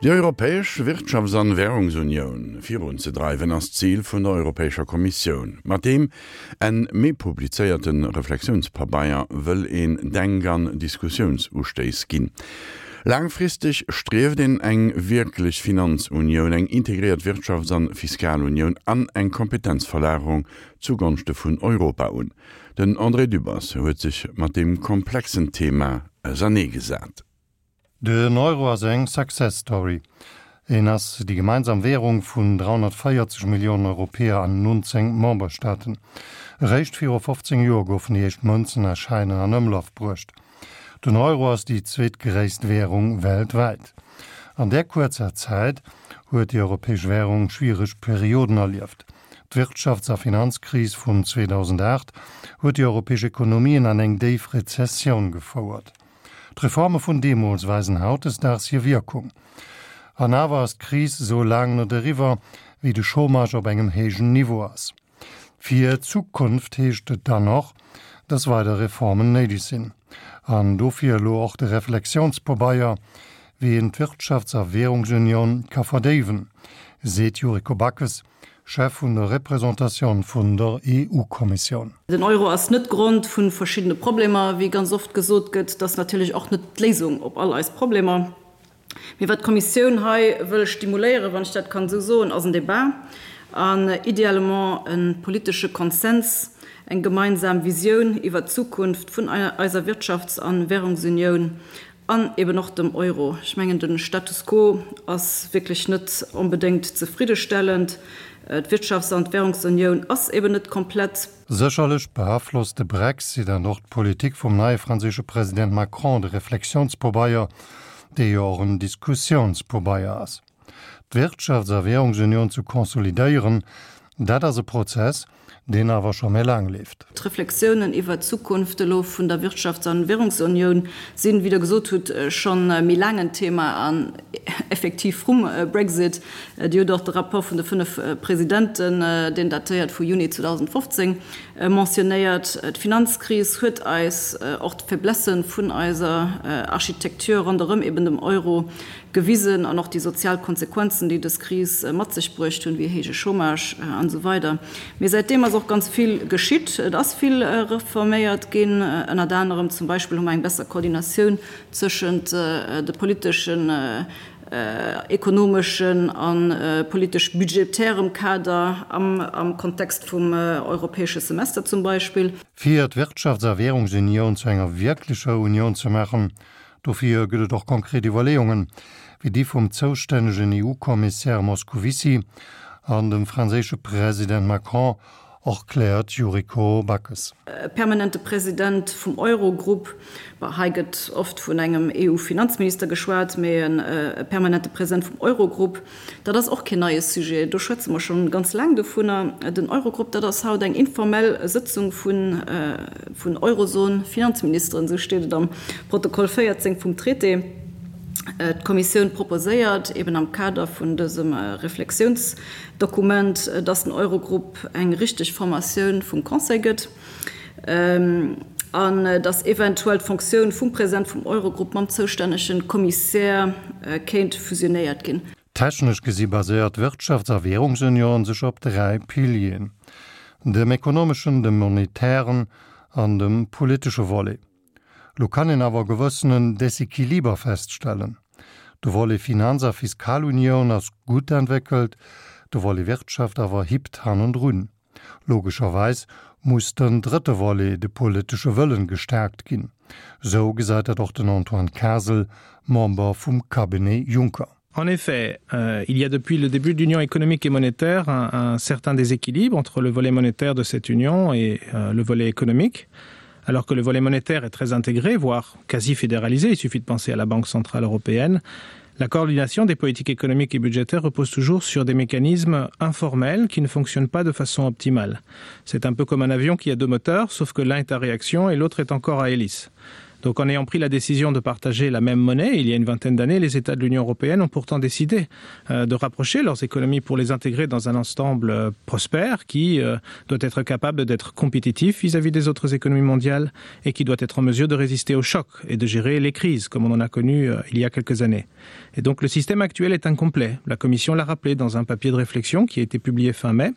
Déi europäesch Wirtschafts an Währungsunioun virunzedreiwen ass d'Zil vun der Europäescher Kommissioun. Mat deem Enn Mee publizéierte Reflexiounspabeier wëll een Denk an Diskussiounsustéiss ginn. Laangfristeg strieft een eng wierklech Finanzunioun, eng integréiert Wirtschafts an Fiskalunioun an eng Kompetenzverlagerung zu Gonschte vun Europa un. Den André Dübbers huet sech mat deem komplexen Thema auserneegesat. Den Euro ass eng Success Story. En ass déi gemeinsam Währung vun 340 Milliounen Europäer an 19 Memberstaaten. Eréischt viru 15 Joer goufen déi éischt Mënzen a Schäiner an Ëmlaf bruecht. Den Euro ass déi zweetgréisst Währung weltwäit. An där kuerzer Zäit huet déi europäesch Währung schwiereg Perioden erlieft. D'Wirtschafts a Finanzkris vun 2008 huet déi europäesch Ekonomien an eng déif Rezessioun gefouert. D'Reforme vun deemools weisen hautdesdaags hir Wierkung. An awer ass d'Kris esou laang net eriwwer, wéi de Chômage op engem héijen Niveau ass. Fir d'Zukunft heescht et dann och, dass weider Reformen néideg sinn. An dofir elo och de Reflexiounspabeier, wéi een d'Wirtschafts a Währungsunioun ka verdéiwen, seet d'Yuriko Backes, Chef vun der Représentatioun vun der EU-Kommissioun. Den Euro ass net Grond vu verschiddene Problemer, wéi ganz oft gesot gëtt. Et ass natierlech och net d'Léisung op all eis Problemer. Mee wat d'Kommissioun hei wëll stimuléieren, wann ech dat kann esou soen, ass en Débat an idéalement e politesche Konsens, eng gemeinsam Visioun iwwert d'Zukunft vun eiser Wirtschafts a Währungsunioun An eben och dem Euro. Ech mengen, de Status quo ass wierklech net onbedéngt zefriddestellend. D'Wirtschafts an d'Währungsunioun ass eben net komplett. Sécherlech beaflosst de Brexit an och d'Politik vum neie franséische President Macron de Reflexiounspobeier, dee jo och en Diskussiounspobeier ass. D'Wirtschafts a Währungsunioun ze konsolidéieren, dat ass e Prozess, deen awer scho méi laang leeft. D'Reflexiounen iwwert d'Zukunft elo vun der Wirtschafts an Währungsunioun sinn, wéi Der gesot hutt, scho méi laang en Thema an effektiv vrum Brexit. Dir hutt och de Rapport vun de fënnf Presidenten, deen datéiert vu Juni 2015, mentionnéiert. D'Finanzkris huet eis och d'Faiblesse vun eiser Architektur ronderëm eben dem Euro gewisen an och déi sozial Konsequenzen, déi dës Kris mat sech bruecht hunn, wéi héije Chômage an esou weider. Mee säitdeem ass och ganz vill geschitt. Et ass vill reforméiert ginn, ënnert anerem zum Beispill hu mer eng besser Koordinatioun tëschent de politeschen, ekonomeschen a politesch-budgetärem Kader am Kontext vum europäesche Semester zum Beispill. Fir d'Wirtschafts a Währungsunioun zu enger wierklecher Unioun ze maachen, Dofir gëtt et och konkret Iwwerleeungen, wéi déi vum zoustännegen EU-Kommissär Moscovici an dem franséische President Macron, erkläert d'Yuriko Backes. E permanente President vum Eurogrupp, bon, hei gëtt oft vun engem EU-Finanzminister geschwat, mee e permanente President vum Eurogrupp, Dat ass och keen neie Sujet, do schwätze mer scho ganz laang dovunner. Den Eurogrupp, dat ass haut eng informell Sëtzung vun Eurozon-Finanzministeren, esou steet et am Protokoll 14 vum Traité. D'Kommissioun proposéiert eben am Kader vun dësem Reflexiounsdokument, dass den Eurogrupp eng richteg Formatioun vum Conseil gëtt an dass eventuell d'Fonctioun vum President vum Eurogrupp mam zoustännege Kommissär kéint fusionéiert ginn. Technesch gesi baséiert d'Wirtschafts a Währungsunioun sech op 3 Pilieren, dem ekonomeschen, dem monetären an dem politesche Volet. Lo kann een awer e gewëssenen Desequiliber feststellen. De Volet Finanz a Fiskalunioun ass gutt entwéckelt, de Volet Wirtschaft awer hippt hannendrun. Logescherweis muss den drëtte Volet, de politesche Wëllen, gestärkt ginn. Sou gesäit dat och den Antoine Kasel, Member vum Cabinet Juncker. En effet, euh, il y a depuis le début de l'Union économique et monétaire un, un certain déséquilibre entre le volet monétaire de cette union et euh, le volet économique. Alors que le volet monétaire est très intégré, voire quasi fédéralisé, il suffit de penser à la Banque centrale européenne, la coordination des politiques économiques et budgétaires repose toujours sur des mécanismes informels qui ne fonctionnent pas de façon optimale. C'est un peu comme un avion qui a deux moteurs, sauf que l'un est à réaction et l'autre est encore à hélice. Donc en ayant pris la décision de partager la même monnaie il y a une vingtaine d'années, les États de l'Union européenne ont pourtant décidé euh, de rapprocher leurs économies pour les intégrer dans un ensemble euh, prospère qui euh, doit être capable d'être compétitif vis-à-vis -vis des autres économies mondiales et qui doit être en mesure de résister aux chocs et de gérer les crises comme on en a connu il y a quelques années. Et donc le système actuel est incomplet. La Commission l'a rappelé dans un papier de réflexion qui a été publié fin mai.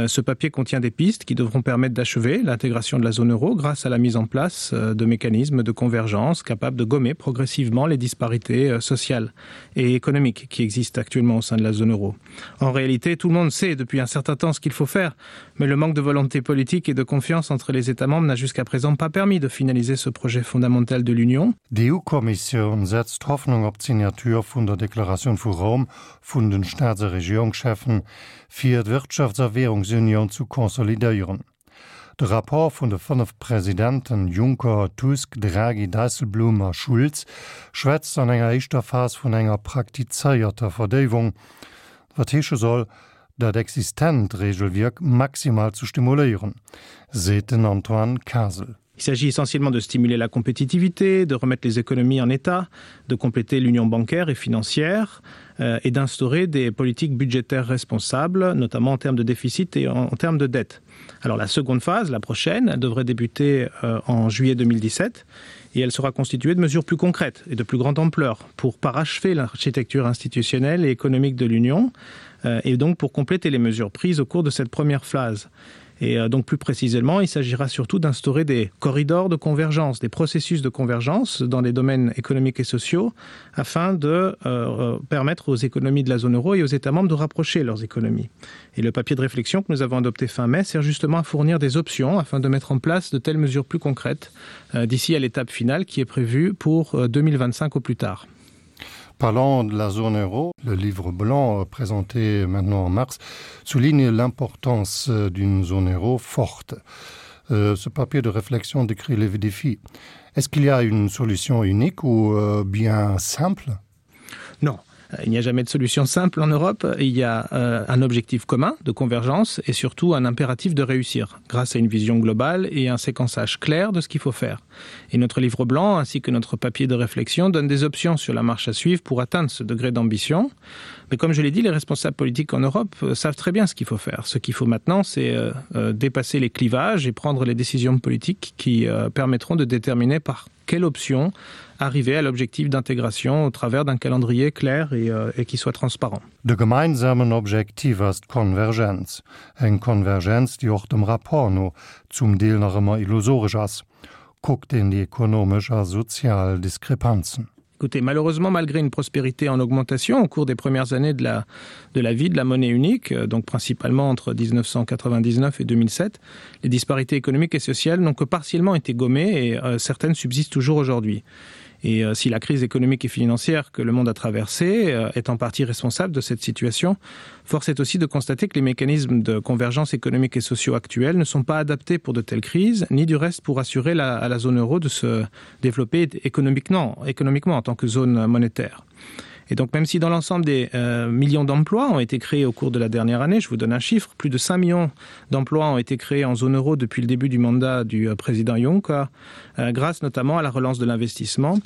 Ce papier contient des pistes qui devront permettre d'achever l'intégration de la zone euro grâce à la mise en place de mécanismes de convergence capables de gommer progressivement les disparités euh, sociales et économiques qui existent actuellement au sein de la zone euro. En réalité, tout le monde sait depuis un certain temps ce qu'il faut faire, mais le manque de volonté politique et de confiance entre les États membres n'a jusqu'à présent pas permis de finaliser ce projet fondamental de l'Union. D'EU-Kommissioun setzt Hoffnung op d'Signature vun der Deklaratioun vu Roum vun den Staats a Regierungscheffen, fir d'Wirtschafts a Währungsunioun zu konsolidéieren. De Rapport vun de 5 Presidenten Juncker, Tusk, Draghi, Dijsselbloem a Schulz schwätzt an enger éischter Phas vun enger praktizéierter Verdéiwung, wat heesche soll, dat existent Regelwierk maximal zu stimuléieren, seet den Antoine Kasel. Il s'agit essentiellement de stimuler la compétitivité, de remettre les économies en état, de compléter l'union bancaire et financière euh, et d'instaurer des politiques budgétaires responsables, notamment en termes de déficit et en, en termes de dette. Alors la seconde phase, la prochaine, elle devrait débuter euh, en juillet 2017 et elle sera constituée de mesures plus concrètes et de plus grande ampleur pour parachever l'architecture institutionnelle et économique de l'Union euh, et donc pour compléter les mesures prises au cours de cette première phase. Et euh, donc plus précisément, il s'agira surtout d'instaurer des corridors de convergence, des processus de convergence dans les domaines économiques et sociaux afin de euh, euh, permettre aux économies de la zone euro et aux États membres de rapprocher leurs économies. Et le papier de réflexion que nous avons adopté fin mai sert justement à fournir des options afin de mettre en place de telles mesures plus concrètes euh, d'ici à l'étape finale qui est prévue pour euh, 2025 au plus tard. Parlant de la zone euro, le livre blanc euh, présenté maintenant en mars souligne l'importance euh, d'une zone euro forte. Euh, ce papier de réflexion décrit les défis. Est-ce qu'il y a une solution unique ou bien simple? Non. Il n'y a jamais de solution simple en Europe. Il y a euh, un objectif commun de convergence et surtout un impératif de réussir grâce à une vision globale et un séquençage clair de ce qu'il faut faire. Et notre livre blanc ainsi que notre papier de réflexion donnent des options sur la marche à suivre pour atteindre ce degré d'ambition. Mais comme je l'ai dit, les responsables politiques en Europe euh, savent très bien ce qu'il faut faire. Ce qu'il faut maintenant, c'est euh, euh, dépasser les clivages et prendre les décisions politiques qui euh, permettront de déterminer par quelle option arriver à l'objectif d'intégration au travers d'un calendrier clair et, euh, et qui soit transparent. De gemeinsamen Objektiv ass d'Konvergenz. Eng Konvergenz, déi och dem Rapport no zum Deel nach ëmmer illusoresch ass, kuckt een déi ekonomesch a sozial Diskrepanzen. Écoutez, malheureusement, malgré une prospérité en augmentation au cours des premières années de la, de la vie de la monnaie unique, euh, donc principalement entre 1999 et 2007, les disparités économiques et sociales n'ont que partiellement été gommées et euh, certaines subsistent toujours aujourd'hui. Et euh, si la crise économique et financière que le monde a traversée euh, est en partie responsable de cette situation, force est aussi de constater que les mécanismes de convergence économique et sociaux actuels ne sont pas adaptés pour de telles crises, ni du reste pour assurer la, à la zone euro de se développer économiquement, économiquement en tant que zone monétaire. Et donc même si dans l'ensemble des euh, millions d'emplois ont été créés au cours de la dernière année, je vous donne un chiffre, plus de 5 millions d'emplois ont été créés en zone euro depuis le début du mandat du euh, président Juncker, euh, grâce notamment à la relance de l'investissement,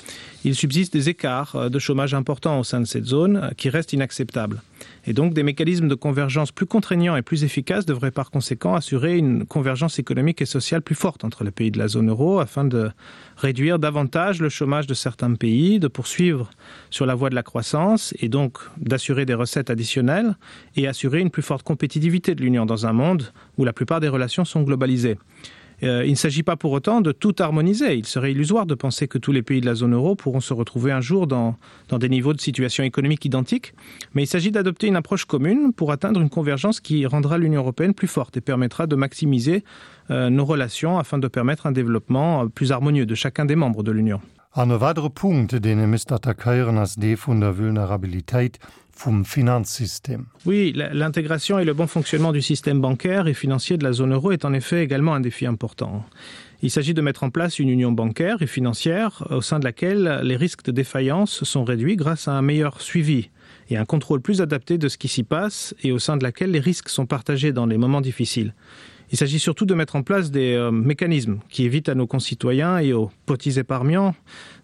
il subsiste des écarts euh, de chômage importants au sein de cette zone euh, qui restent inacceptables. Et donc des mécanismes de convergence plus contraignants et plus efficaces devraient par conséquent assurer une convergence économique et sociale plus forte entre les pays de la zone euro afin de réduire davantage le chômage de certains pays, de poursuivre sur la voie de la croissance et donc d'assurer des recettes additionnelles et assurer une plus forte compétitivité de l'Union dans un monde où la plupart des relations sont globalisées. Euh, il ne s'agit pas pour autant de tout harmoniser. Il serait illusoire de penser que tous les pays de la zone euro pourront se retrouver un jour dans, dans des niveaux de situation économique identiques, mais il s'agit d'adopter une approche commune pour atteindre une convergence qui rendra l'Union européenne plus forte et permettra de maximiser euh, nos relations afin de permettre un développement euh, plus harmonieux de chacun des membres de l'Union. An e weidere Punkt, deen ee misst attackéieren, ass dee vun der Vulnerabilitéit vum Finanzsystem. Oui, l'intégration et le bon fonctionnement du système bancaire et financier de la zone euro est en effet également un défi important. Il s'agit de mettre en place une union bancaire et financière au sein de laquelle les risques de défaillance sont réduits grâce à un meilleur suivi. et un contrôle plus adapté de ce qui s'y passe et au sein de laquelle les risques sont partagés dans les moments difficiles. Il s'agit surtout de mettre en place des euh, mécanismes qui évitent à nos concitoyens et aux petits épargnants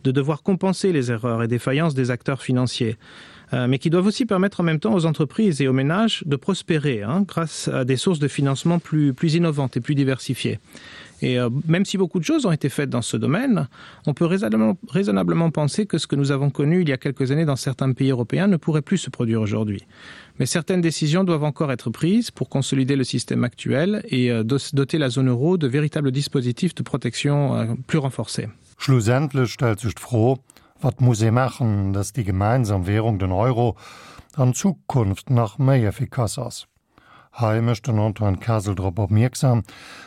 de devoir compenser les erreurs et défaillances des acteurs financiers, euh, mais qui doivent aussi permettre en même temps aux entreprises et aux ménages de prospérer hein, grâce à des sources de financement plus, plus innovantes et plus diversifiées. Et euh, même si beaucoup de choses ont été faites dans ce domaine, on peut raisonnablement, raisonnablement penser que ce que nous avons connu il y a quelques années dans certains pays européens ne pourrait plus se produire aujourd'hui. Mais certaines décisions doivent encore être prises pour consolider le système actuel et euh, doter la zone euro de véritables dispositifs de protection euh, plus renforcés. Schlussendlech stellt sech d'Fro, Wat muss ee maachen, dass déi gemeinsam Währung, den Euro, an Zukunft nach méi effikass ass? Hei mécht den Antoine Kasel drop opmierksam,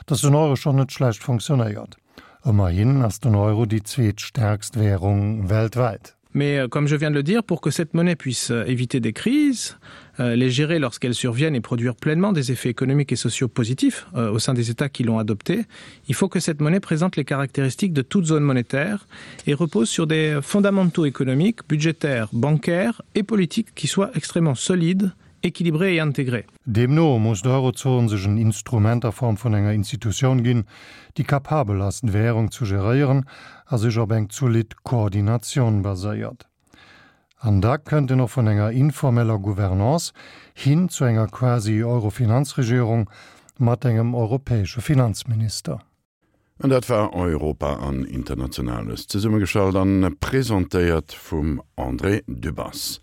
dass den Euro schonn net schlecht funktionéiert. Ëmmerhin ass den Euro déi zweetstäerkst Währung weltwäit. Mais euh, comme je viens de le dire, pour que cette monnaie puisse euh, éviter des crises, euh, les gérer lorsqu'elles surviennent et produire pleinement des effets économiques et sociaux positifs au sein des États qui l'ont adoptée, il faut que cette monnaie présente les caractéristiques de toute zone monétaire et repose sur des fondamentaux économiques, budgétaires, bancaires et politiques qui soient extrêmement solides, équilibrés et intégrés. Deemno muss d'Eurozon sech en Instrument a Form vun enger Institutioun ginn, déi capabel ass, d'Währung zu geréieren a sech op eng zolidd Koordinatioun baséiert. An da kënnt en och vun enger informeller Gouvernance hin zu enger quasi Euro-Finanzregierung mat engem europäesche Finanzminister. An dat war Europa an Internationales, zesummegestallt an presentéiert vum André Dübbers.